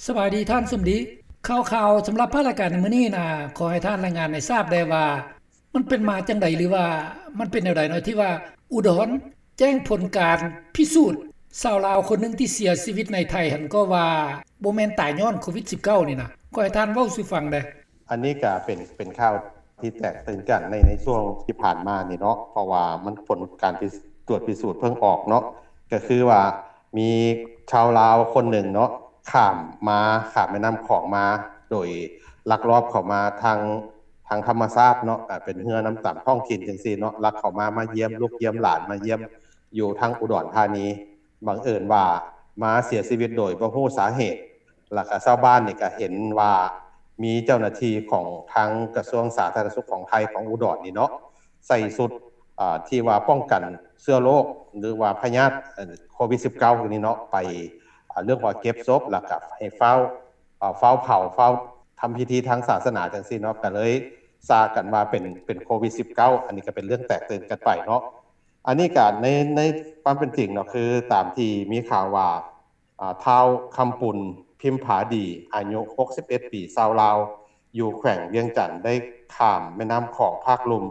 ສະບາຍດີທ່ານສົມດີ. ຂ່າວໆສຳລັບພາກລາຍການໃນມື້ນີ້ນະ ຂໍໃຫ້ທ່ານລາຍງານໃຫ້ຊາບແດ່ວ່າ ມັນເປັນມາຈັ່ງໃດ ຫຼືວ່າມັນເປັນແນວໃດເນາະ ທີ່ວ່າອຸດອນແຈ້ງຜົນການພິສູດຊາວລາວຄົນໜຶ່ງທີ່ເສຍຊີວິດໃນໄທຫັ້ນ ກໍວ່າບໍ່ແມ່ນຕາຍຍ້ອນໂຄວິດສິບເກົ້ານີ້ນະ. ຂໍໃຫ້ທ່ານເວົ້າສູ່ຟັງແດ່. ອັນນີ້ກໍເປັນ ເປັນຂ່າວທີ່ແຕກຕື່ນກັນໃນ ໃນຊ່ວງທີ່ຜ່ານມານີ້ເນາະ ເພາະວ່າມັນ ຜົນການພິ ກວດພິສູດເພິ່ງອອກເນາະ ກໍຄືວ່າມີຊາວລາວຄົນໜຶ່ງເນາະ ຂ້າມມາ ຂ້າມແມ່ນ້ຳຂອງມາ ໂດຍລັກລອບເຂົ້າມາທາງ ທາງທຳມະຊາດເນາະ ອາ ເປັນເຮືອນຳຕາມທ້ອງຖິ່ນຈັ່ງຊີ້ເນາະ ລັກເຂົ້າມາ ມາຢ້ຽມລູກຢ້ຽມຫຼານ ມາຢ້ຽມຢູ່ທາງອຸດອນທານີ. ບັງເອີນວ່າມາເສຍຊີວິດໂດຍບໍ່ຮູ້ສາເຫດ ແລ້ວກະຊາວບ້ານນີ້ກະເຫັນວ່າມີເຈົ້າໜ້າທີ່ຂອງທາງກະຊວງສາທາລະນະສຸກຂອງໄທ ຂອງອຸດອນນີ້ເນາະ ໃສ່ຊຸດ ອາ ທີ່ວ່າປ້ອງກັນເຊື້ອໂລກ ຫຼືວ່າພະຍາດ ເອີ ໂຄວິດສິບເກົ້ານີ້ເນາະ ໄປ ອາ ເລື່ອງວ່າເກັບສົບ ແລ້ວກະໃຫ້ຟ້າວ ອາ ຟ້າວເຜົາ ຟ້າວທຳພິທີທາງສາສະໜາຈັ່ງຊີ້ເນາະ ກະເລີຍຊາກັນວ່າເປັນ ເປັນໂຄວິດສິບເກົ້າ. ອັນນີ້ກະເປັນເລື່ອງແຕກຕື່ນກັນໄປເນາະ. ອັນນີ້ກະໃນ ໃນຄວາມເປັນຈິງເນາະ ຄືຕາມທີ່ມີຂ່າວວ່າ ອາ ທ້າວຄຳປຸນ ພິມຜາດີ ອາຍຸຫົກສິບເອັດປີ ຊາວລາວ ຢູ່ແຂວງວຽງຈັນ ໄດ້ຂ້າມແມ່ນ້ຳຂອງພາກລຸ່ມ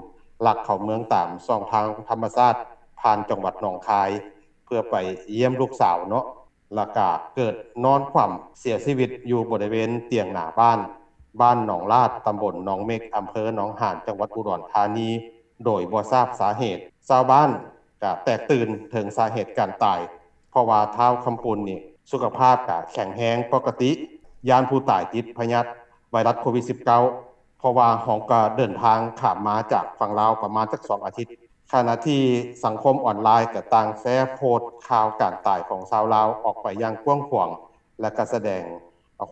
ລັກເຂົ້າເມືອງຕາມຊ່ອງທາງທຳມະຊາດ ຜ່ານຈັງຫວັດໜອງຄາຍ ເພື່ອໄປຢ້ຽມລູກສາວເນາະ ແລ້ວກະເກີດນອນຂວ້ຳເສຍຊີວິດຢູ່ບໍລິເວນຕຽງໜ້າບ້ານ ບ້ານໜອງລາດ ຕຳບົນໜອງເມັກ ອຳເພີໜອງຫານ ຈັງຫວັດອຸດອນທານີ ໂດຍບໍ່ຊາບສາເຫດ. ຊາວບ້ານກະແຕກຕື່ນເຖິງສາເຫດການຕາຍ ເພາະວ່າທ້າວຄຳປຸນນີ້ສຸຂະພາບກະແຂງແຮງປົກກະຕິ ຢ້ານຜູ້ຕາຍຕິດພະຍາດໄວຣັສໂຄວິດສິບເກົ້າ ເພາະວ່າເຮົາກະເດີນທາງຂ້າມມາຈາກຝັ່ງລາວປະມານຈັກສອງອາທິດ. ຂະນະທີ່ສັງຄົມອອນລາຍກະຕ່າງແຊໂພສຂ່າວການຕາຍຂອງຊາວລາວອອກໄປຢ່າງກວ້າງຂວາງ ແລະກະສະແດງ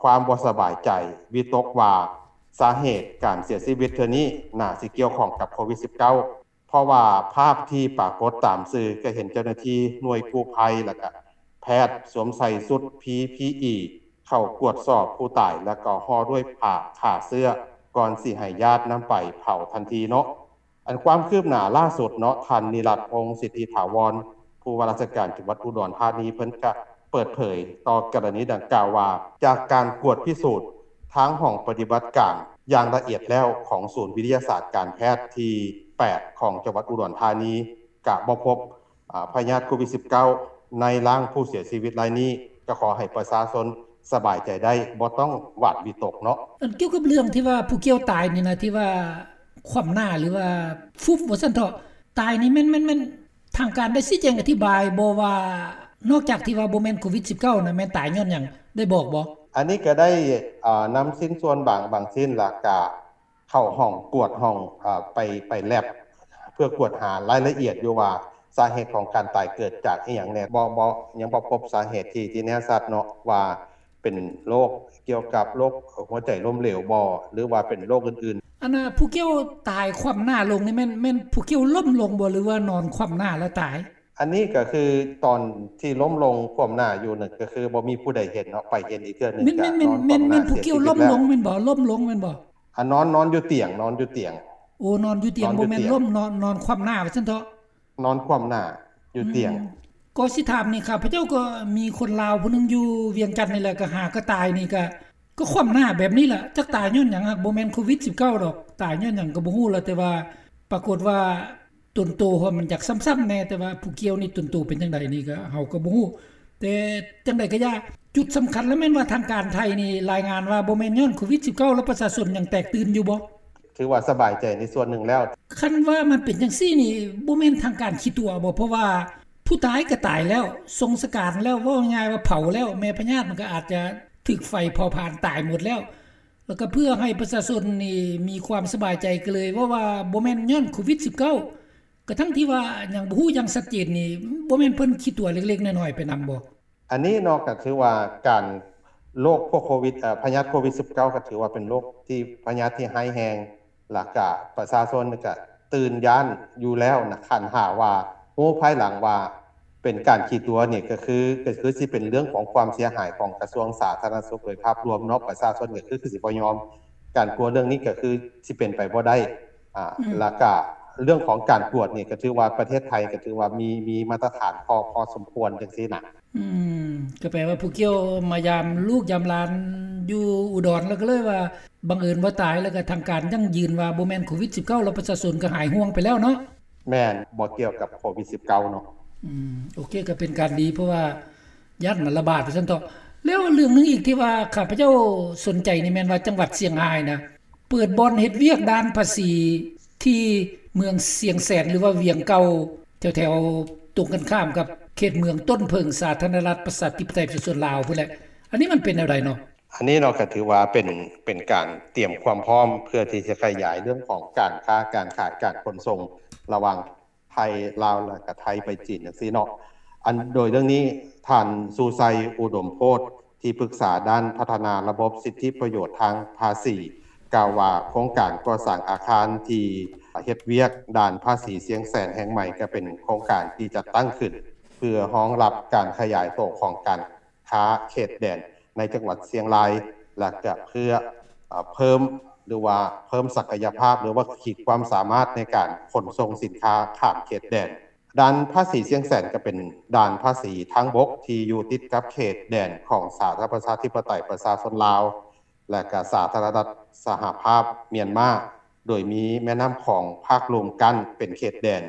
ຄວາມບໍ່ສະບາຍໃຈ ວິຕົກວ່າສາເຫດການເສຍຊີວິດເທື່ອນີ້ໜ້າຊິກ່ຽວຂ້ອງກັບໂຄວິດສິບເກົ້າ ເພາະວ່າພາບທີ່ປາກົດຕາມສື່ກະເຫັນເຈົ້າໜ້າທີ່ໜ່ວຍກູ້ໄພ ແລະກະແພດສວມໃສ່ຊຸດພີພີອີ ເຂົ້າກວດສອບຜູ້ຕາຍ ແລະກໍຫໍ່ດ້ວຍຜ້າຂ້າເຊື້ອ ກ່ອນຊິໃຫ້ຍາດນຳໄປເຜົາທັນທີເນາະ. ອັນຄວາມຄືບໜ້າລ່າສຸດເນາະ ທ່ານ ນິລັດ ພົງສິດທິຖາວອນ ຜູ້ວ່າລາຊະການຈັງຫວັດອຸດອນທານີ ເພິ່ນກະເປີດເຜີຍຕໍ່ກໍລະນີດັ່ງກ່າວວ່າ ຈາກການກວດພິສູດທາງຫ້ອງປະຕິບັດການຢ່າງລະອຽດແລ້ວຂອງສູນວິທະຍາສາດການແພດທີແປດຂອງຈັງຫວັດອຸດອນທານີ ກະບໍ່ພົບ ອາ ພະຍາດໂຄວິດສິບເກົ້າໃນຮ່າງຜູ້ເສຍຊີວິດລາຍນີ້ ກະຂໍໃຫ້ປະຊາຊົນສະບາຍໃຈໄດ້ ບໍ່ຕ້ອງຫວາດວິຕົກເນາະ. ອັນກ່ຽວກັບເລື່ອງທີ່ວ່າຜູ້ກ່ຽວຕາຍນີ້ນະ ທີ່ວ່າຂວ້ຳໜ້າ ຫຼືວ່າຟຸບວ່າຊັ້ນເຖາະ ຕາຍນີ້ແມ່ນ ແມ່ນ ແມ່ນທາງການໄດ້ຊີ້ແຈງອະທິບາຍບໍ່ວ່າ ນອກຈາກທີ່ວ່າບໍ່ແມ່ນໂຄວິດສິບເກົ້ານະ ແມ່ນຕາຍຍ້ອນຫຍັງ ໄດ້ບອກບໍ່? ອັນນີ້ກະໄດ້ ອາ ນຳຊິ້ນສ່ວນບາງ ບາງຊິ້ນ ແລ້ວກະ ເຂົ້າຫ້ອງກວດ ຫ້ອງ ອາ ໄປ ໄປແລັບ ເພື່ອກວດຫາລາຍລະອຽດຢູ່ວ່າ ສາເຫດຂອງການຕາຍເກີດຈາກອີ່ຫຍັງແດ່ ບໍ່ ບໍ່ ຍັງບໍ່ພົບສາເຫດທີ່ ທີ່ແນ່ຊັດເນາະ ວ່າເປັນໂລກກ່ຽວກັບໂລກຫົວໃຈລົ້ມເຫຼວບໍ່ ຫຼືວ່າເປັນໂລກອື່ນໆ. ອັນນະ ຜູ້ກ່ຽວຕາຍຂວ້ຳໜ້າລົງນີ້ແມ່ນ ແມ່ນຜູ້ກ່ຽວລົ້ມລົງບໍ່ ຫຼືວ່ານອນຂວ້ຳໜ້າແລ້ວຕາຍ? ອັນນີ້ກະຄືຕອນທີ່ລົ້ມລົງຂວ້ຳໜ້າຢູ່ນັ້ນ ກະຄືບໍ່ມີຜູ້ໃດເຫັນເນາະ ໄປເຫັນອີກເທື່ອໜຶ່ງ ແມ່ນ ກະ ແມ່ນ ນອນຂວ້ຳໜ້າ ແມ່ນຜູ້ກ່ຽວລົ້ມລົງແມ່ນບໍ່? ລົ້ມລົງແມ່ນບໍ່? ອາ ນອນ ນອນຢູ່ຕຽງ ນອນຢູ່ຕຽງ ໂອ້ ນອນຢູ່ຕຽງ ນອນຢູ່ຕຽງ ບໍ່ແມ່ນລົ້ມ ນອນ ນອນຂວ້ຳໜ້າວ່າຊັ້ນເຖາະ ນອນຂວ້ຳໜ້າຢູ່ຕຽງ. ອືມ ກໍຊິຖາມນີ້ ຂ້າພະເຈົ້າກໍມີຄົນລາວຜູ້ໜຶ່ງຢູ່ວຽງຈັນນີ້ແຫຼະ ກໍຫາກໍຕາຍນີ້ ກໍ ກໍຂວ້ຳໜ້າແບບນີ້ລະ ຈັກຕາຍຍ້ອນຫຍັງ ຫາກບໍ່ແມ່ນໂຄວິດສິບເກົ້າດອກ ຕາຍຍ້ອນຫຍັງກໍບໍ່ຮູ້ລະ ແຕ່ວ່າປາກົດວ່າ ຕົນໂຕຫັ້ນມັນຢາກຊ້ຳໆແດ່ ແຕ່ວ່າຜູ້ກ່ຽວນີ້ຕົນໂຕເປັນຈັ່ງໃດນີ້ກໍເຮົາກໍບໍ່ຮູ້ ແຕ່ຈັ່ງໃດກໍຢ່າ ຈຸດສຳຄັນລະແມ່ນວ່າທາງການໄທນີ້ລາຍງານວ່າບໍ່ແມ່ນຍ້ອນໂຄວິດສິບເກົ້າ ແລ້ວປະຊາຊົນຍັງແຕກຕື່ນຢູ່ບໍ່? ຖືວ່າສະບາຍໃຈໃນສ່ວນໜຶ່ງແລ້ວ. ຄັນວ່າມັນເປັນຈັ່ງຊີ້ນີ້ ບໍ່ແມ່ນທາງການຂີ້ຕົວະບໍ່? ເພາະວ່າຜູ້ຕາຍກໍຕາຍແລ້ວ ສົ່ງສະການແລ້ວ ເວົ້າງ່າຍໆວ່າເຜົາແລ້ວ ແມ່ພະຍາດມັນກໍອາດຈະຖືກໄຟເຜົາຜານຕາຍໝົດແລ້ວ ແລ້ວກໍເພື່ອໃຫ້ປະຊາຊົນນີ້ມີຄວາມສະບາຍໃຈ ກໍເລີຍເວົ້າວ່າບໍ່ແມ່ນຍ້ອນໂຄວິດສິບເກົ້າ ກະທັງທີ່ວ່າຍັງບໍ່ຮູ້ຢ່າງຊັດເຈນນີ້ ບໍ່ແມ່ນເພິ່ນຂີ້ຕົວະເລັກໆນ້ອຍໆໄປນຳບໍ່? ອັນນີ້ເນາະ ກະຖືວ່າການ ໂລກພວກໂຄວິດ ເອີ ພະຍາດໂຄວິດສິບເກົ້າ ກະຖືວ່າເປັນໂລກທີ່ ພະຍາດທີ່ຮ້າຍແຮງ ລະກະປະຊາຊົນກະຕື່ນຢ້ານຢູ່ແລ້ວນະ ຄັນຫາກວ່າຮູ້ພາຍຫຼັງວ່າເປັນການຂີ້ຕົວະນີ້ ກະຄື ກະຄືຊິເປັນເລື່ອງຂອງຄວາມເສຍຫາຍຂອງກະຊວງສາທາລະນະສຸກໂດຍພາບລວມເນາະ ປະຊາຊົນກະຄື ຄືຊິບໍ່ຍອມ ການກົວເລື່ອງນີ້ກະຄືຊິເປັນໄປບໍ່ໄດ້ ອາ ອືມ ລະກະເລື່ອງຂອງການກວດນີ້ ກະຖືວ່າປະເທດໄທກະຖືວ່າມີ ມີມາດຕະຖານພໍ ພໍສົມຄວນຈັ່ງຊີ້ນະ. ອືມ ກໍແປວ່າຜູ້ກ່ຽວມາຢາມລູກຢາມຫຼານຢູ່ອຸດອນ ແລ້ວກໍເລີຍວ່າບັງເອີນບໍ່ຕາຍ ແລ້ວກໍທາງການຢັ້ງຢືນວ່າບໍ່ແມ່ນໂຄວິດສິບເກົ້າ ແລ້ວປະຊາຊົນກໍຫາຍຫ່ວງໄປແລ້ວເນາະ. ແມ່ນ ບໍ່ກ່ຽວກັບໂຄວິດສິບເກົ້າເນາະ. ອືມ ໂອເຄ ກໍເປັນການດີ ເພາະວ່າຢ້ານມັນລະບາດວ່າຊັ້ນເຖາະ. ແລ້ວເລື່ອງໜຶ່ງອີກທີ່ວ່າຂ້າພະເຈົ້າສົນໃຈນີ້ແມ່ນວ່າ ຈັງຫວັດຊຽງຮາຍນະ ເປີດບ່ອນເຮັດວຽກດ່ານພາສີທີ່ເມືອງຊຽງແສນ ຫຼືວ່າວຽງເກົ່າ ແຖວໆຕົງກັນຂ້າມກັບເຂດເມືອງຕົ້ນເຜິ້ງ ສາທາລະນະລັດ ປະຊາທິປະໄຕ ປະຊາຊົນລາວພຸ້ນແຫຼະ. ອັນນີ້ມັນເປັນແນວໃດເນາະ? ອັນນີ້ເນາະ ກໍຖືວ່າເປັນ ເປັນການຕຽມຄວາມພ້ອມເພື່ອທີ່ຈະຂະຫຍາຍເລື່ອງຂອງການຄ້າການຂາຍ ການຂົນສົ່ງລະຫວ່າງ ໄທ ລາວ ແລະກະໄທໄປຈີນຈັ່ງຊີ້ເນາະ. ອັນ ໂດຍເລື່ອງນີ້ ທ່ານ ຊູໄຊ ອຸດົມໂພດ ທີ່ປຶກສາດ້ານພັດທະນາລະບົບສິດທິປະໂຫຍດທາງພາສີ ກ່າວວ່າ ໂຄງການກໍ່ສ້າງອາຄານທີ່ເຮັດວຽກດ່ານພາສີຊຽງແສນແຫ່ງໃໝ່ ກະເປັນໂຄງການທີ່ຈັດຕັ້ງຂຶ້ນ ເພື່ອຮອງຮັບການຂະຫຍາຍໂຕຂອງການ ຄ້າເຂດແດນໃນຈັງຫວັດຊຽງລາຍ ແລະກະເພື່ອ ເອີ ເພີ່ມ ຫຼືວ່າເພີ່ມສັກກະຍະພາບ ຫຼືວ່າຂີດຄວາມສາມາດໃນການຂົນສົ່ງສິນຄ້າຂ້າມເຂດແດນ. ດ່ານພາສີຊຽງແສນກະເປັນດ່ານພາສີທາງບົກທີ່ຢູ່ຕິດກັບເຂດແດນຂອງສາທາລະນະລັດປະຊາທິປະໄຕປະຊາຊົນລາວ ແລະກະສາທາລະນະລັດສະຫະພາບມຽນມາ ໂດຍມີແມ່ນ້ຳຂອງພາກລຸ່ມກັ້ນເປັນເຂດແດນ.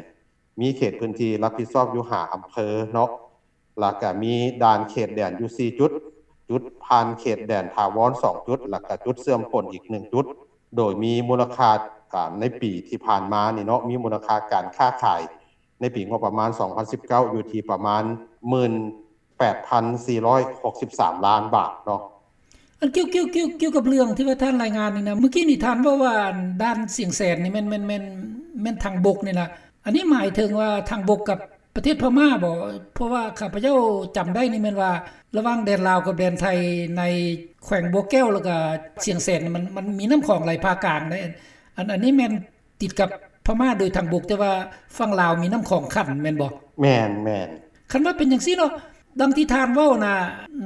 ມີເຂດພື້ນທີ່ຮັບຜິດຊອບຢູ່ຫ້າອຳເພີເນາະ ແລ້ວກະມີດ່ານເຂດແດນຢູ່ສີ່ຈຸດ, ຈຸດຜ່ານເຂດແດນຖາວອນສອງຈຸດ ແລ້ວກະຈຸດເຊື່ອມປົນອີກໜຶ່ງຈຸດ, ໂດຍມີມູນລະຄ່າ ອາ ໃນປີທີ່ຜ່ານມານີ້ເນາະ ມີມູນລະຄ່າການຄ້າຂາຍໃນປີງົບປະມານສອງພັນສິບເກົ້າ ຢູ່ທີ່ປະມານ ໝື່ນແປດພັນສີ່ຮ້ອຍຫົກສິບສາມລ້ານບາດເນາະ. ອັນ ກ່ຽວ ກ່ຽວ ກ່ຽວ ກ່ຽວກັບເລື່ອງທີ່ວ່າທ່ານລາຍງານນີ້ນະ ມື້ກີ້ນີ້ທ່ານເວົ້າວ່າ ດ່ານຊຽງແສນນີ້ແມ່ນ ແມ່ນ ແມ່ນ ແມ່ນທາງບົກນີ້ລະ ອັນນີ້ໝາຍເຖິງວ່າທາງບົກກັບປະເທດພະມ້າບໍ? ເພາະວ່າຂ້າພະເຈົ້າຈຳໄດ້ນີ້ແມ່ນວ່າ ລະຫວ່າງແດນລາວກັບແດນໄທ ໃນແຂວງບໍ່ແກ້ວ ແລ້ວກະຊຽງແສນ ມັນ ມັນມີນ້ຳຂອງໄຫຼຜ່າກາງເດ້. ອັນ ອັນນີ້ແມ່ນ ຕິດກັບພະມ້າໂດຍທາງບົກ ແຕ່ວ່າຝັ່ງລາວມີນ້ຳຂອງຂັ້ນແມ່ນບໍ່? ແມ່ນ ແມ່ນ. ຄັນວ່າເປັນຈັ່ງຊີ້ເນາະ ດັ່ງທີ່ທ່ານເວົ້ານະ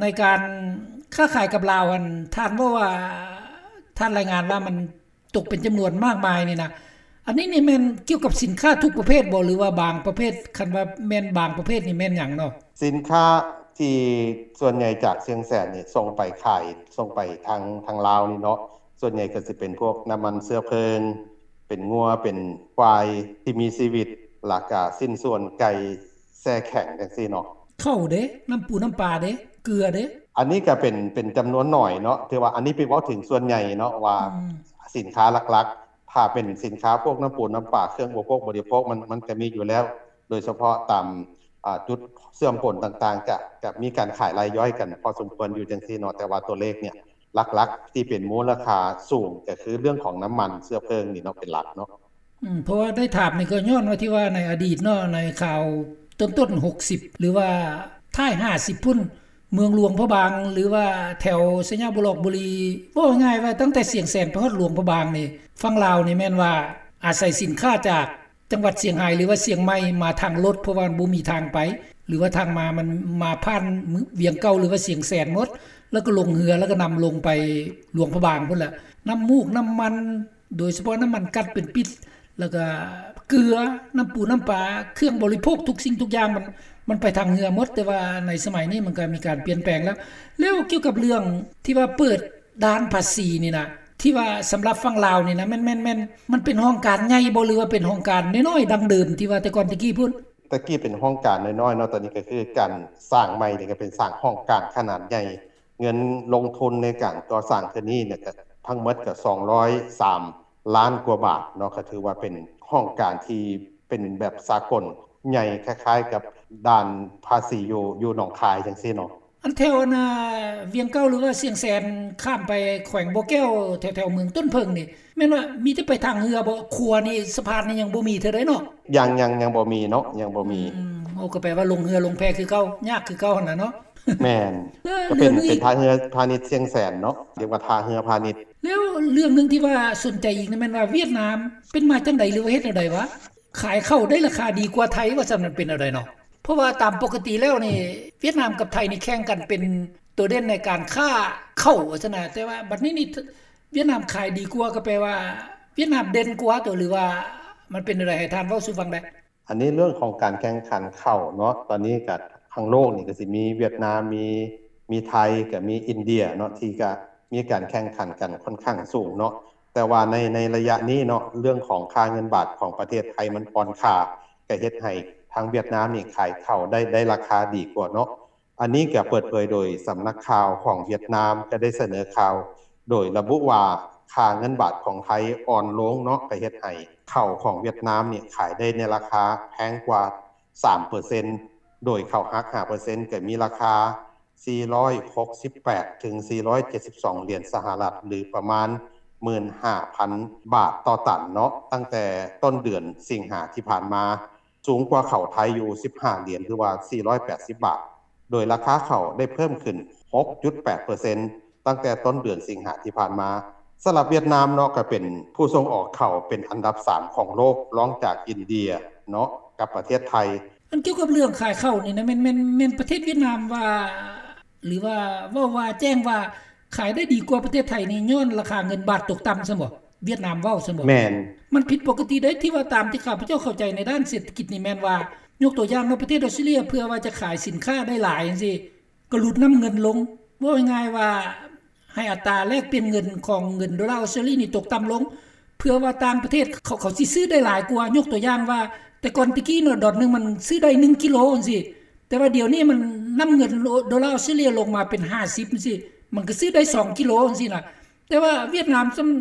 ໃນການຄ້າຂາຍກັບລາວຫັ້ນ ທ່ານເວົ້າວ່າ ທ່ານລາຍງານວ່າມັນຕົກເປັນຈຳນວນມາກມາຍນີ້ນະ ອັນນີ້ນີ້ແມ່ນກ່ຽວກັບສິນຄ້າທຸກປະເພດບໍ່ ຫຼືວ່າບາງປະເພດ? ຄັນວ່າແມ່ນບາງປະເພດນີ້ແມ່ນຫຍັງເນາະ? ສິນຄ້າທີ່ສ່ວນໃຫຍ່ຈາກຊຽງແສນນີ້ສົ່ງໄປຂາຍ ສົ່ງໄປທາງ ທາງລາວນີ້ເນາະ ສ່ວນໃຫຍ່ກໍຊິເປັນພວກນ້ຳມັນເຊື້ອເພີງ ເປັນງົວ ເປັນຄວາຍທີ່ມີຊີວິດ ແລ້ວກະຊິ້ນສ່ວນໄກ່ແຊ່ແຂງຈັ່ງຊີ້ເນາະ. ເຂົ້າເດ? ນ້ຳປູນ້ຳປາເດ? ເກືອເດ? ອັນນີ້ກະເປັນ ເປັນຈຳນວນໜ້ອຍເນາະ ຖືວ່າອັນນີ້ເປັນເວົ້າເຖິງສ່ວນໃຫຍ່ເນາະວ່າ ອືມ ສິນຄ້າຫຼັກໆ ຖ້າເປັນສິນຄ້າພວກນ້ຳປູນ້ຳປາ ເຄື່ອງອຸປະໂພກບໍລິໂພກ ມັນ ມັນກະມີຢູ່ແລ້ວ ໂດຍສະເພາະຕາມ ອາ ຈຸດເຊື່ອມປົນຕ່າງໆ ກະ ກະມີການຂາຍລາຍຍ່ອຍກັນພໍສົມຄວນຢູ່ຈັ່ງຊີ້ເນາະ ແຕ່ວ່າຕົວເລກເນີ້ຍ ຫຼັກໆ ທີ່ເປັນມູນລະຄ່າສູງ ກະຄືເລື່ອງຂອງນ້ຳມັນເຊື້ອເພີງນີ້ເນາະ ເປັນຫຼັກເນາະ. ອືມ ເພາະວ່າໄດ້ຖາມນີ້ກໍຍ້ອນວ່າທີ່ວ່າໃນອະດີດເນາະ ໃນຄາວຕົ້ນໆ ຫົກສິບ ຫຼືວ່າທ້າຍຫ້າສິບພຸ້ນ ເມືອງຫຼວງພະບາງ ຫຼືວ່າແຖວໄຊຍະບູລອກບູລີ ເວົ້າງ່າຍໆວ່າຕັ້ງແຕ່ຊຽງແສນໄປຮອດຫຼວງພະບາງນີ້ ຝັ່ງລາວນີ້ແມ່ນວ່າອາໄສສິນຄ້າຈາກ ຈັງຫວັດຊຽງຮາຍ ຫຼືວ່າຊຽງໃໝ່ ມາທາງລົດ ເພາະວ່າມັນບໍ່ມີທາງໄປ ຫຼືວ່າທາງມາມັນມາຜ່ານວຽງເກົ່າ ຫຼືວ່າຊຽງແສນໝົດ ແລ້ວກໍລົງເຮືອ ແລ້ວກໍນຳລົງໄປຫຼວງພະບາງພຸ້ນແຫຼະ. ນ້ຳມູກ ນ້ຳມັນ ໂດຍສະເພາະນ້ຳມັນກັດເປັນປິດ ແລ້ວກໍເກືອ ນ້ຳປູນ້ຳປາ ເຄື່ອງບໍລິໂພກ ທຸກສິ່ງທຸກຢ່າງ ມັນ ມັນໄປທາງເຮືອໝົດ ແຕ່ວ່າໃນສະໄໝນີ້ມັນກໍມີການປ່ຽນແປງແລ້ວ. ແລ້ວກ່ຽວກັບເລື່ອງທີ່ວ່າເປີດ ດ່ານພາສີນີ້ນະ ທີ່ວ່າສຳລັບຝັ່ງລາວນີ້ນະ ແມ່ນ ແມ່ນ ແມ່ນ ມັນເປັນຫ້ອງການໃຫຍ່ບໍ່ ຫຼືວ່າເປັນຫ້ອງການນ້ອຍໆ ດັ່ງເດີມທີ່ວ່າແຕ່ກ່ອນແຕ່ກີ້ພຸ້ນ? ແຕ່ກີ້ເປັນຫ້ອງການນ້ອຍໆເນາະ ຕອນນີ້ກໍຄືການສ້າງໃໝ່ນີ້ກໍເປັນສ້າງຫ້ອງການຂະໜາດໃຫຍ່ ເງິນລົງທຶນໃນການກໍ່ສ້າງເທື່ອນີ້ນະ ກໍທັງໝົດກໍສອງຮ້ອຍສາມລ້ານກວ່າບາດເນາະ ກໍຖືວ່າເປັນຫ້ອງການທີ່ເປັນແບບສາກົນ ໃຫຍ່ຄ້າຍໆກັບດ່ານພາສີຢູ່ ຢູ່ໜອງຄາຍຈັ່ງຊີ້ເນາະ. ອັນແຖວອັນ ອາ ວຽງເກົ່າ ຫຼືວ່າຊຽງແສນ ຂ້າມໄປແຂວງບໍ່ແກ້ວ ແຖວໆເມືອງຕົ້ນເຜິ້ງນີ້ ແມ່ນວ່າມີແຕ່ໄປທາງເຮືອບໍ່? ຂົວນີ້ ສະພານນີ້ຍັງບໍ່ມີເທື່ອໃດເນາະ? ຍັງ ຍັງ ຍັງບໍ່ມີເນາະ ຍັງບໍ່ມີ. ອືມ ໂອ້ ກໍແປວ່າລົງເຮືອລົງແພຄືເກົ່າ ຍາກຄືເກົ່າຫັ້ນນະເນາະ. ແມ່ນ ເອີ ກໍເປັນ ເລື່ອງນີ້ ເປັນທ່າເຮືອພານິດຊຽງແສນເນາະ ຮຽກວ່າທ່າເຮືອພານິດ. ແລ້ວເລື່ອງໜຶ່ງທີ່ວ່າສົນໃຈອີກນີ້ແມ່ນວ່າຫວຽດນາມ ເປັນມາຈັ່ງໃດ ຫຼືວ່າເຮັດແນວໃດວະ? ຂາຍເຂົ້າໄດ້ລາຄາດີກວ່າໄທວ່າຊັ້ນ ມັນເປັນແນວໃດເນາະ? ເພາະວ່າຕາມປົກກະຕິແລ້ວນີ້ ຫວຽດນາມກັບໄທນີ້ແຂ່ງກັນເປັນໂຕເດັ່ນໃນການຄ້າເຂົ້າວ່າຊັ້ນນະ ແຕ່ວ່າບັດນີ້ນີ້ ຫວຽດນາມຂາຍດີກວ່າ ກໍແປວ່າຫວຽດນາມເດັ່ນກວ່າຕົວະ ຫຼືວ່າມັນເປັນແນວໃດ? ໃຫ້ທ່ານເວົ້າສູ່ຟັງແດ່. ອັນນີ້ເລື່ອງຂອງການແຂ່ງຂັນເຂົ້າເນາະ ຕອນນີ້ກໍ ທາງໂລກນີ້ກໍຊິມີຫວຽດນາມ ມີ ມີໄທ ກໍມີອິນເດຍເນາະ ທີ່ກໍມີການແຂ່ງຂັນກັນຂ້ອນຂ້າງສູງເນາະ. ແຕ່ວ່າໃນ ໃນໄລຍະນີ້ເນາະ ເລື່ອງຂອງຄ່າເງິນບາດຂອງປະເທດໄທມັນອ່ອນຄ່າ ກໍເຮັດໃຫ້ທາງຫວຽດນາມນີ້ຂາຍເຂົ້າໄດ້ ໄດ້ລາຄາດີກວ່າເນາະ. ອັນນີ້ກໍເປີດເຜີຍໂດຍສຳນັກຂ່າວຂອງຫວຽດນາມ ກໍໄດ້ສະເໜີຂ່າວໂດຍລະບຸວ່າ ຄ່າເງິນບາດຂອງໄທອ່ອນລົງເນາະ ກໍເຮັດໃຫ້ເຂົ້າຂອງຫວຽດນາມນີ້ຂາຍໄດ້ໃນລາຄາແພງກວ່າສາມເປີເຊັນ ໂດຍເຂົ້າຫັກຫ້າເປີເຊັນ ກໍມີລາຄາສີ່ຮ້ອຍຫົກສິບແປດ ເຖິງສີ່ຮ້ອຍເຈັດສິບສອງຫຼຽນສະຫະລັດ ຫຼື ປະມານໝື່ນຫ້າພັນບາດຕໍ່ຕັນເນາະ ຕັ້ງແຕ່ຕົ້ນເດືອນສິງຫາທີ່ຜ່ານມາ. ສູງກວ່າເຂົ້າໄທຢູ່ສິບຫ້າຫຼຽນ ຫຼືວ່າສີ່ຮ້ອຍແປດສິບບາດ ໂດຍລາຄາເຂົ້າໄດ້ເພີ່ມຂຶ້ນຫົກຈຸດແປດເປີເຊັນ ຕັ້ງແຕ່ຕົ້ນເດືອນສິງຫາທີ່ຜ່ານມາ. ສຳລັບຫວຽດນາມເນາະ ກໍເປັນຜູ້ສົ່ງອອກເຂົ້າເປັນອັນດັບສາມຂອງໂລກ ລອງຈາກອິນເດຍເນາະ ກັບປະເທດໄທ. ອັນກ່ຽວກັບເລື່ອງຂາຍເຂົ້ານີ້ນະ ແມ່ນ ແມ່ນ ແມ່ນປະເທດຫວຽດນາມວ່າ ຫຼືວ່າເວົ້າວ່າແຈ້ງວ່າ ຂາຍໄດ້ດີກວ່າປະເທດໄທນີ້ ຍ້ອນລາຄາເງິນບາດຕົກຕ່ຳຊັ້ນບໍ? ຫວຽດນາມເວົ້າຊັ້ນບໍ? ແມ່ນ. ມັນຜິດປົກກະຕິເດ້ ທີ່ວ່າຕາມທີ່ຂ້າພະເຈົ້າເຂົ້າໃຈໃນດ້ານເສດຖະກິດນີ້ແມ່ນວ່າ ຍົກຕົວຢ່າງເນາະ ປະເທດອອສເຕຣເລຍ ເພື່ອວ່າຈະຂາຍສິນຄ້າໄດ້ຫຼາຍຈັ່ງຊີ້ ກໍຫຼຸດນ້ຳເງິນລົງ. ເວົ້າງ່າຍໆວ່າ ໃຫ້ອັດຕາແລກປ່ຽນເງິນຂອງເງິນໂດລາອອສເຕຣເລຍນີ້ຕົກຕ່ຳລົງ ເພື່ອວ່າຕ່າງປະເທດເຂົາ ເຂົາຊິຊື້ໄດ້ຫຼາຍກວ່າ. ຍົກຕົວຢ່າງວ່າ ແຕ່ກ່ອນແຕ່ກີ້ເນາະ ດອນໜຶ່ງມັນຊື້ໄດ້ໜຶ່ງກິໂລຈັ່ງຊີ້ ແຕ່ວ່າດຽວນີ້ມັນ ນ້ຳເງິນໂດລາອອສເຕຣເລຍລົງມາເປັນຫ້າສິບຈັ່ງຊີ້ ມັນກໍຊື້ໄດ້ສອງກິໂລຈັ່ງຊີ້ນະ. ແຕ່ວ່າຫວຽດນາມ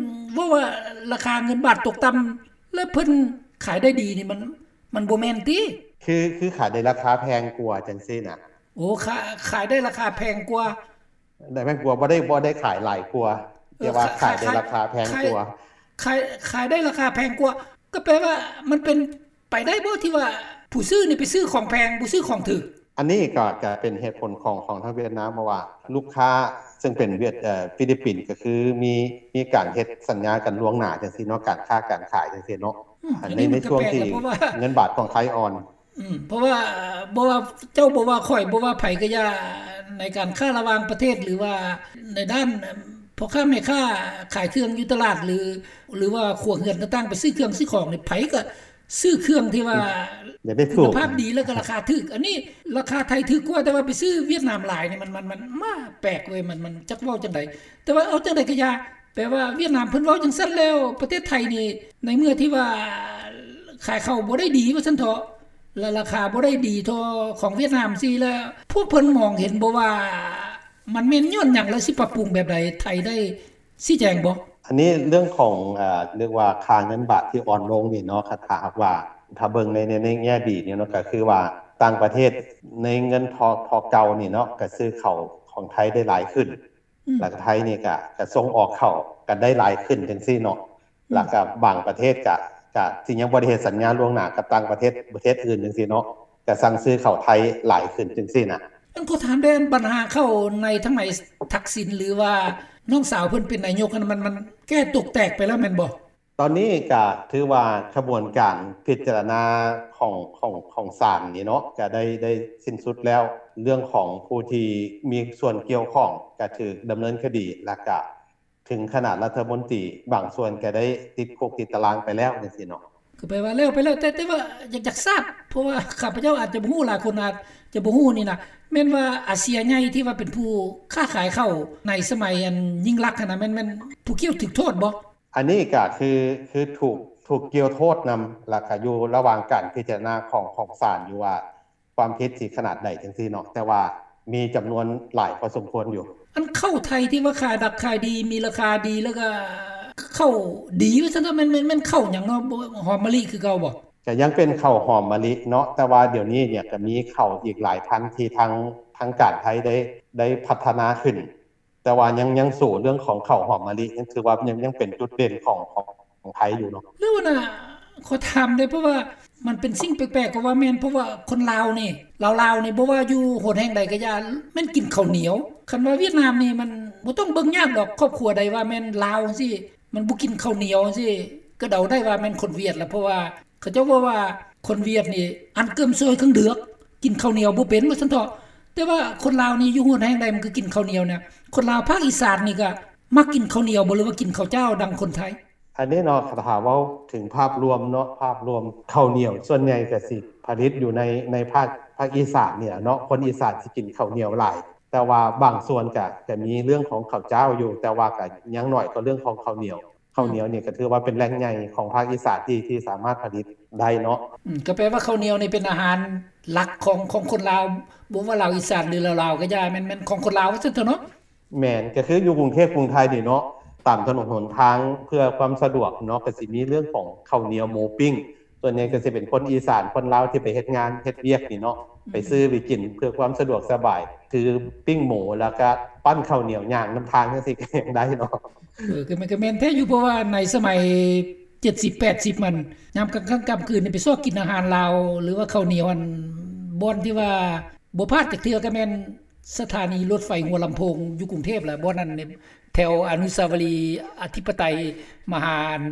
ເວົ້າວ່າລາຄາເງິນບາດຕົກຕ່ຳ ແລ້ວເພິ່ນຂາຍໄດ້ດີນີ້ ມັນ ມັນບໍ່ແມ່ນຕິ? ຄື ຄືຂາຍໄດ້ລາຄາແພງກວ່າຈັ່ງຊີ້ນະ. ໂອ້ ຂາ ຂາຍໄດ້ລາຄາແພງກວ່າ. ໄດ້ແພງກວ່າ ບໍ່ໄດ້ ບໍ່ໄດ້ຂາຍຫຼາຍກວ່າ ແຕ່ວ່າຂາຍໄດ້ລາຄາແພງກວ່າ. ຂາຍ ຂາຍໄດ້ລາຄາແພງກວ່າ ກໍແປວ່າມັນເປັນໄປໄດ້ບໍ່ ທີ່ວ່າຜູ້ຊື້ນີ້ໄປຊື້ຂອງແພງ ບໍ່ຊື້ຂອງຖືກ? ອັນນີ້ກໍ ກໍເປັນເຫດຜົນຂອງ ຂອງທາງຫວຽດນາມ ເພາະວ່າລູກຄ້າເຊິ່ງເປັນຫວຽດ ເອີ ຟີລິບປິນ ກໍຄືມີ ມີການເຮັດສັນຍາກັນລ່ວງໜ້າຈັ່ງຊີ້ເນາະ ການຄ້າການຂາຍຈັ່ງຊີ້ເນາະ. ອືມ ອັນນີ້ ໃນ ໃນຊ່ວງທີ່ເງິນບາດຂອງໄທອ່ອນ. ອືມ ເພາະວ່າ ບໍ່ວ່າເຈົ້າ ບໍ່ວ່າຂ້ອຍ ບໍ່ວ່າໃຜກໍຢ່າ ໃນການຄ້າລະຫວ່າງປະເທດ ຫຼືວ່າໃນດ້ານພໍ່ຄ້າແມ່ຄ້າຂາຍເຄື່ອງຢູ່ຕະຫຼາດ ຫຼື ຫຼືວ່າຄົວເຮືອນຕ່າງໆ ໄປຊື້ເຄື່ອງຊື້ຂອງນີ້ ໃຜກໍຊື້ເຄື່ອງທີ່ວ່າ ອືມ ຄຸນນະພາບດີ ແລ້ວກໍລາຄາຖືກ. ອັນນີ້ລາຄາໄທຖືກກວ່າ ແຕ່ວ່າໄປຊື້ຫວຽດນາມຫຼາຍນີ້ ມັນ ມັນ ມັນ ມາແປກເວີຍ ມັນ ມັນຈັກເວົ້າຈັ່ງໃດ. ແຕ່ວ່າເອົາຈັ່ງໃດກໍຢ່າ ແປວ່າຫວຽດນາມເພິ່ນເວົ້າຈັ່ງຊັ້ນແລ້ວ ປະເທດໄທນີ້ ໃນເມື່ອທີ່ວ່າຂາຍເຂົ້າບໍ່ໄດ້ດີວ່າຊັ້ນເຖາະ ແລະ ລາຄາບໍ່ໄດ້ດີເທົ່າຂອງຫວຽດນາມຊີ້ ແລ້ວພວກເພິ່ນມອງເຫັນບໍ່ວ່າ ມັນແມ່ນຍ້ອນຫຍັງ ແລະ ຊິປັບປຸງແບບໃດ? ໄທໄດ້ຊີ້ແຈງບໍ່? ອັນນີ້ເລື່ອງຂອງ ເອີ ເອີ້ນວ່າຄ່າເງິນບາດທີ່ອ່ອນລົງນີ້ເນາະ ຖ້າຫາກວ່າ ຖ້າເບິ່ງໃນ ໃນ ໃນແງ່ດີນີ້ເນາະ ກໍຄືວ່າຕ່າງປະເທດໃນເງິນເທົ່າ ເທົ່າເກົ່ານີ້ເນາະ ກໍຊື້ເຂົ້າຂອງໄທໄດ້ຫຼາຍຂຶ້ນ. ອືມ ແລ້ວກໍໄທນີ້ກໍ ກໍສົ່ງອອກເຂົ້າກັນໄດ້ຫຼາຍຂຶ້ນຈັ່ງຊີ້ເນາະ. ອືມ ແລ້ວກໍບາງປະເທດກໍ ກໍທີ່ຍັງບໍ່ໄດ້ເຮັດສັນຍາລ່ວງໜ້າກັບຕ່າງປະເທດ ປະເທດອື່ນຈັ່ງຊີ້ເນາະ ກໍສັ່ງຊື້ເຂົ້າໄທຫຼາຍຂຶ້ນຈັ່ງຊີ້ນະ. ອັນ ຂໍຖາມແດ່ ອັນບັນຫາເຂົ້າໃນທາງໃນທັກສິນ ຫຼືວ່ານ້ອງສາວເພິ່ນເປັນນາຍົກຫັ້ນ ມັນ ມັນແກ້ຕົກແຕກໄປແລ້ວແມ່ນບໍ່? ຕອນນີ້ກໍຖືວ່າຂະບວນການພິຈາລະນາຂອງ ຂອງ ຂອງສານນີ້ເນາະ ກໍໄດ້ ໄດ້ສິ້ນສຸດແລ້ວ. ເລື່ອງຂອງຜູ້ທີ່ມີສ່ວນກ່ຽວຂ້ອງກໍຖືກດຳເນີນຄະດີ ແລ້ວກໍເຖິງຂະໜາດລັດຖະມົນຕີບາງສ່ວນກໍໄດ້ຕິດຄຸກຕິດຕາລາງໄປແລ້ວຈັ່ງຊີ້ເນາະ. ກໍແປວ່າແລ້ວໄປແລ້ວ ແຕ່ ແຕ່ວ່າຢາກ ຢາກຊາບ ເພາະວ່າຂ້າພະເຈົ້າອາດຈະບໍ່ຮູ້ ຫຼາຍຄົນອາດຈະບໍ່ຮູ້ນີ້ນະ ແມ່ນວ່າອາເຊຍໃຫຍ່ທີ່ວ່າເປັນຜູ້ຄ້າຂາຍເຂົ້າໃນສະໄໝອັນຍິ່ງລັກຫັ້ນນະ ແມ່ນ ແມ່ນຜູ້ກ່ຽວຖືກໂທດບໍ່? ອັນນີ້ກໍຄື ຄືຖືກ ຖືກກ່ຽວໂທດນຳ ແລ້ວກໍຢູ່ລະຫວ່າງການພິຈາລະນາຂອງ ຂອງສານຢູ່ວ່າ ຄວາມຜິດຊິຂະໜາດໃດຈັ່ງຊີ້ເນາະ ແຕ່ວ່າມີຈຳນວນຫຼາຍພໍສົມຄວນຢູ່. ອັນເຂົ້າໄທທີ່ວ່າຂາຍດິບຂາຍດີ ມີລາຄາດີ ແລ້ວກໍເຂົ້າດີວ່າຊັ້ນເຖາະ ແມ່ນ ແມ່ນ ແມ່ນເຂົ້າຫຍັງເນາະ? ຫອມມະລິຄືເກົ່າບໍ່? ກໍຍັງເປັນເຂົ້າຫອມມະລິເນາະ ແຕ່ວ່າດຽວນີ້ເນຍກໍມີເຂົ້າອີກຫຼາຍພັນທີ່ທາງ ທາງການໄທໄດ້ ໄດ້ພັດທະນາຂຶ້ນ ແຕ່ວ່າຍັງ ຍັງສູ້ເລື່ອງຂອງເຂົ້າຫອມມະລິ ຍັງຖືວ່າຍັງ ຍັງເປັນຈຸດເດັ່ນຂອງ ຂອງ ຂອງໄທຢູ່ເນາະ. ແລ້ວນະ ຂໍຖາມແດ່ ເພາະວ່າມັນເປັນສິ່ງແປກໆ ກໍວ່າແມ່ນ ເພາະວ່າຄົນລາວນີ້ ລາວໆ ນີ້ ບໍ່ວ່າຢູ່ຫົນແຫ່ງໃດກໍຢ່າ ແມ່ນກິນເຂົ້າໜຽວ. ຄັນວ່າຫວຽດນາມນີ້ ມັນບໍ່ຕ້ອງເບິ່ງຍາກດອກ ຄອບຄົວໃດວ່າແມ່ນລາວຈັ່ງຊີ້ ມັນບໍ່ກິນເຂົ້າໜຽວຈັ່ງຊີ້ ກໍເດົາໄດ້ວ່າແມ່ນຄົນຫວຽດລະ ເພາະວ່າ ເຂົາເຈົ້າເວົ້າວ່າຄົນຫວຽດນີ້ ອານເກີມຊວຍເຄິ່ງເດືອກ ກິນເຂົ້າໜຽວບໍ່ເປັນວ່າຊັ້ນເຖາະ. ແຕ່ວ່າຄົນລາວນີ້ຢູ່ຫົນແຫ່ງໃດມັນກໍກິນເຂົ້າໜຽວນະ. ຄົນລາວພາກອີສານນີ້ກໍມັກກິນເຂົ້າໜຽວບໍ່ ຫຼືວ່າກິນເຂົ້າຈ້າວດັ່ງຄົນໄທ? ອັນນີ້ເນາະ ຖ້າເວົ້າເຖິງພາບລວມເນາະ ພາບລວມເຂົ້າໜຽວສ່ວນໃຫຍ່ກໍຊິຜະລິດຢູ່ໃນ ໃນພາກ ພ ພາກອີສານນີ້ແຫຼະເນາະ ຄົນອີສານຊິກິນເຂົ້າໜຽວຫຼາຍ ແຕ່ວ່າບາງສ່ວນກະ ກະມີເລື່ອງຂອງເຂົ້າຈ້າວຢູ່ ແຕ່ວ່າກະຍັງໜ້ອຍກວ່າເລື່ອງຂອງເຂົ້າໜຽວ. ເຂົ້າໜຽວນີ້ກະຖືວ່າເປັນແຫຼ່ງໃຫຍ່ຂອງພາກອີສານທີ່ ທີ່ສາມາດຜະລິດໄດ້ເນາະ. ອືມ ກໍແປວ່າເຂົ້າໜຽວນີ້ເປັນອາຫານຫຼັກຂອງ ຂອງຄົນລາວ ບໍ່ວ່າລາວອີສານ ຫຼືລາວໆກໍຢ່າ ແມ່ນ ແມ່ນຂອງຄົນລາວວ່າຊັ້ນເຖາະເນາະ. ແມ່ນ ກໍຄືຢູ່ກຸງເທບກຸງໄທນີ້ເນາະ ຕາມຖະໜົນຫົນທາງເພື່ອຄວາມສະດວກເນາະ ກໍຊິມີເລື່ອງຂອງເຂົ້າໜຽວໝູປີ້ງ ສ່ວນໃຫຍ່ກໍຊິເປັນຄົນອີສານ ຄົນລາວທີ່ໄປເຮັດງານເຮັດວຽກນີ້ເນາະ ອືມ ໄປຊື້ໄປກິນເພື່ອຄວາມສະດວກສະບາຍ ຄືປີ້ງໝູ ແລ້ວກະປັ້ນເຂົ້າໜຽວຍ່າງນຳທາງຈັ່ງຊີ້ກໍຍັງໄດ້ເນາະ. ເອີ ກໍແມ່ນ ກໍແມ່ນແທ້ຢູ່ ເພາະວ່າໃນສະໄໝເຈັດສິບແປດສິບ ມັນ ຍາມກາງຄ່ຳກາງຄືນນີ້ໄປຊອກກິນອາຫານລາວ ຫຼືວ່າເຂົ້າໜຽວ ອັນ ບ່ອນທີ່ວ່າບໍ່ພາດຈັກເທື່ອກໍແມ່ນສະຖານີລົດໄຟຫົວລຳໂພງຢູ່ກຸງເທບລະ ບ່ອນນັ້ນ ແຖວອະນຸສາວະລີອະທິປະໄຕມະຫາ ອັນ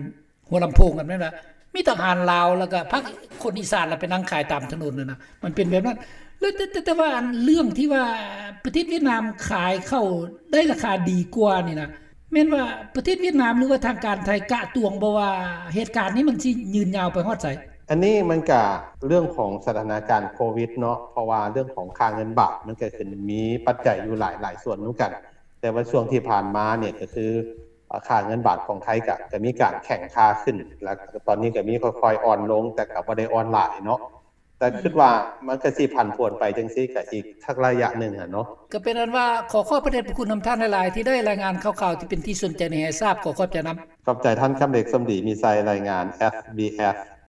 ຫົວລຳໂພງຫັ້ນແມ່ນລະ ມີແຕ່ອາຫານລາວ ແລ້ວກໍພາກຄົນອີສານລະໄປນັ່ງຂາຍຕາມຖະໜົນຫັ້ນນະ ມັນເປັນແບບນັ້ນ. ແລ້ວ ແຕ່ ແຕ່ ແຕ່ວ່າອັນເລື່ອງທີ່ວ່າປະເທດຫວຽດນາມຂາຍເຂົ້າໄດ້ລາຄາດີກວ່ານີ້ນະ ແມ່ນວ່າປະເທດຫວຽດນາມ ຫຼືວ່າທາງການໄທກະຕວງບໍ່ວ່າເຫດການນີ້ມັນຊິຍືນຍາວໄປຮອດໃສ? ອັນນີ້ມັນກະເລື່ອງຂອງສະຖານະການໂຄວິດເນາະ ເພາະວ່າເລື່ອງຂອງຄ່າເງິນບາດມັນກະຂຶ້ນ ມີປັດໄຈຢູ່ຫຼາຍ ຫຼາຍສ່ວນນຳກັນ ແຕ່ວ່າຊ່ວງທີ່ຜ່ານມານີ້ກະຄື ອາ ຄ່າເງິນບາດຂອງໄທກະ ກະມີການແຂງຄ່າຂຶ້ນ ແລ້ວຕອນນີ້ກະມີຄ່ອຍໆອ່ອນລົງ ແຕ່ກະບໍ່ໄດ້ອ່ອນຫຼາຍເນາະ ແຕ່ ອືມ ຄິດວ່າມັນກະຊິຜັນຜວນໄປຈັ່ງຊີ້ກະອີກສັກໄລຍະໜຶ່ງຫັ້ນເນາະ. ກະເປັນອັນວ່າ ຂໍຂອບພະເດດພະຄຸນນຳທ່ານຫຼາຍໆ ທີ່ໄດ້ລາຍງານຂ່າວໆທີ່ເປັນທີ່ສົນໃຈໃຫ້ຊາບ ຂໍຂອບໃຈນຳ. ຂອບໃຈທ່ານ ຄຳເດັກ ສົມດີມີໄຊ ລາຍງານ ເອັສບີເອັສ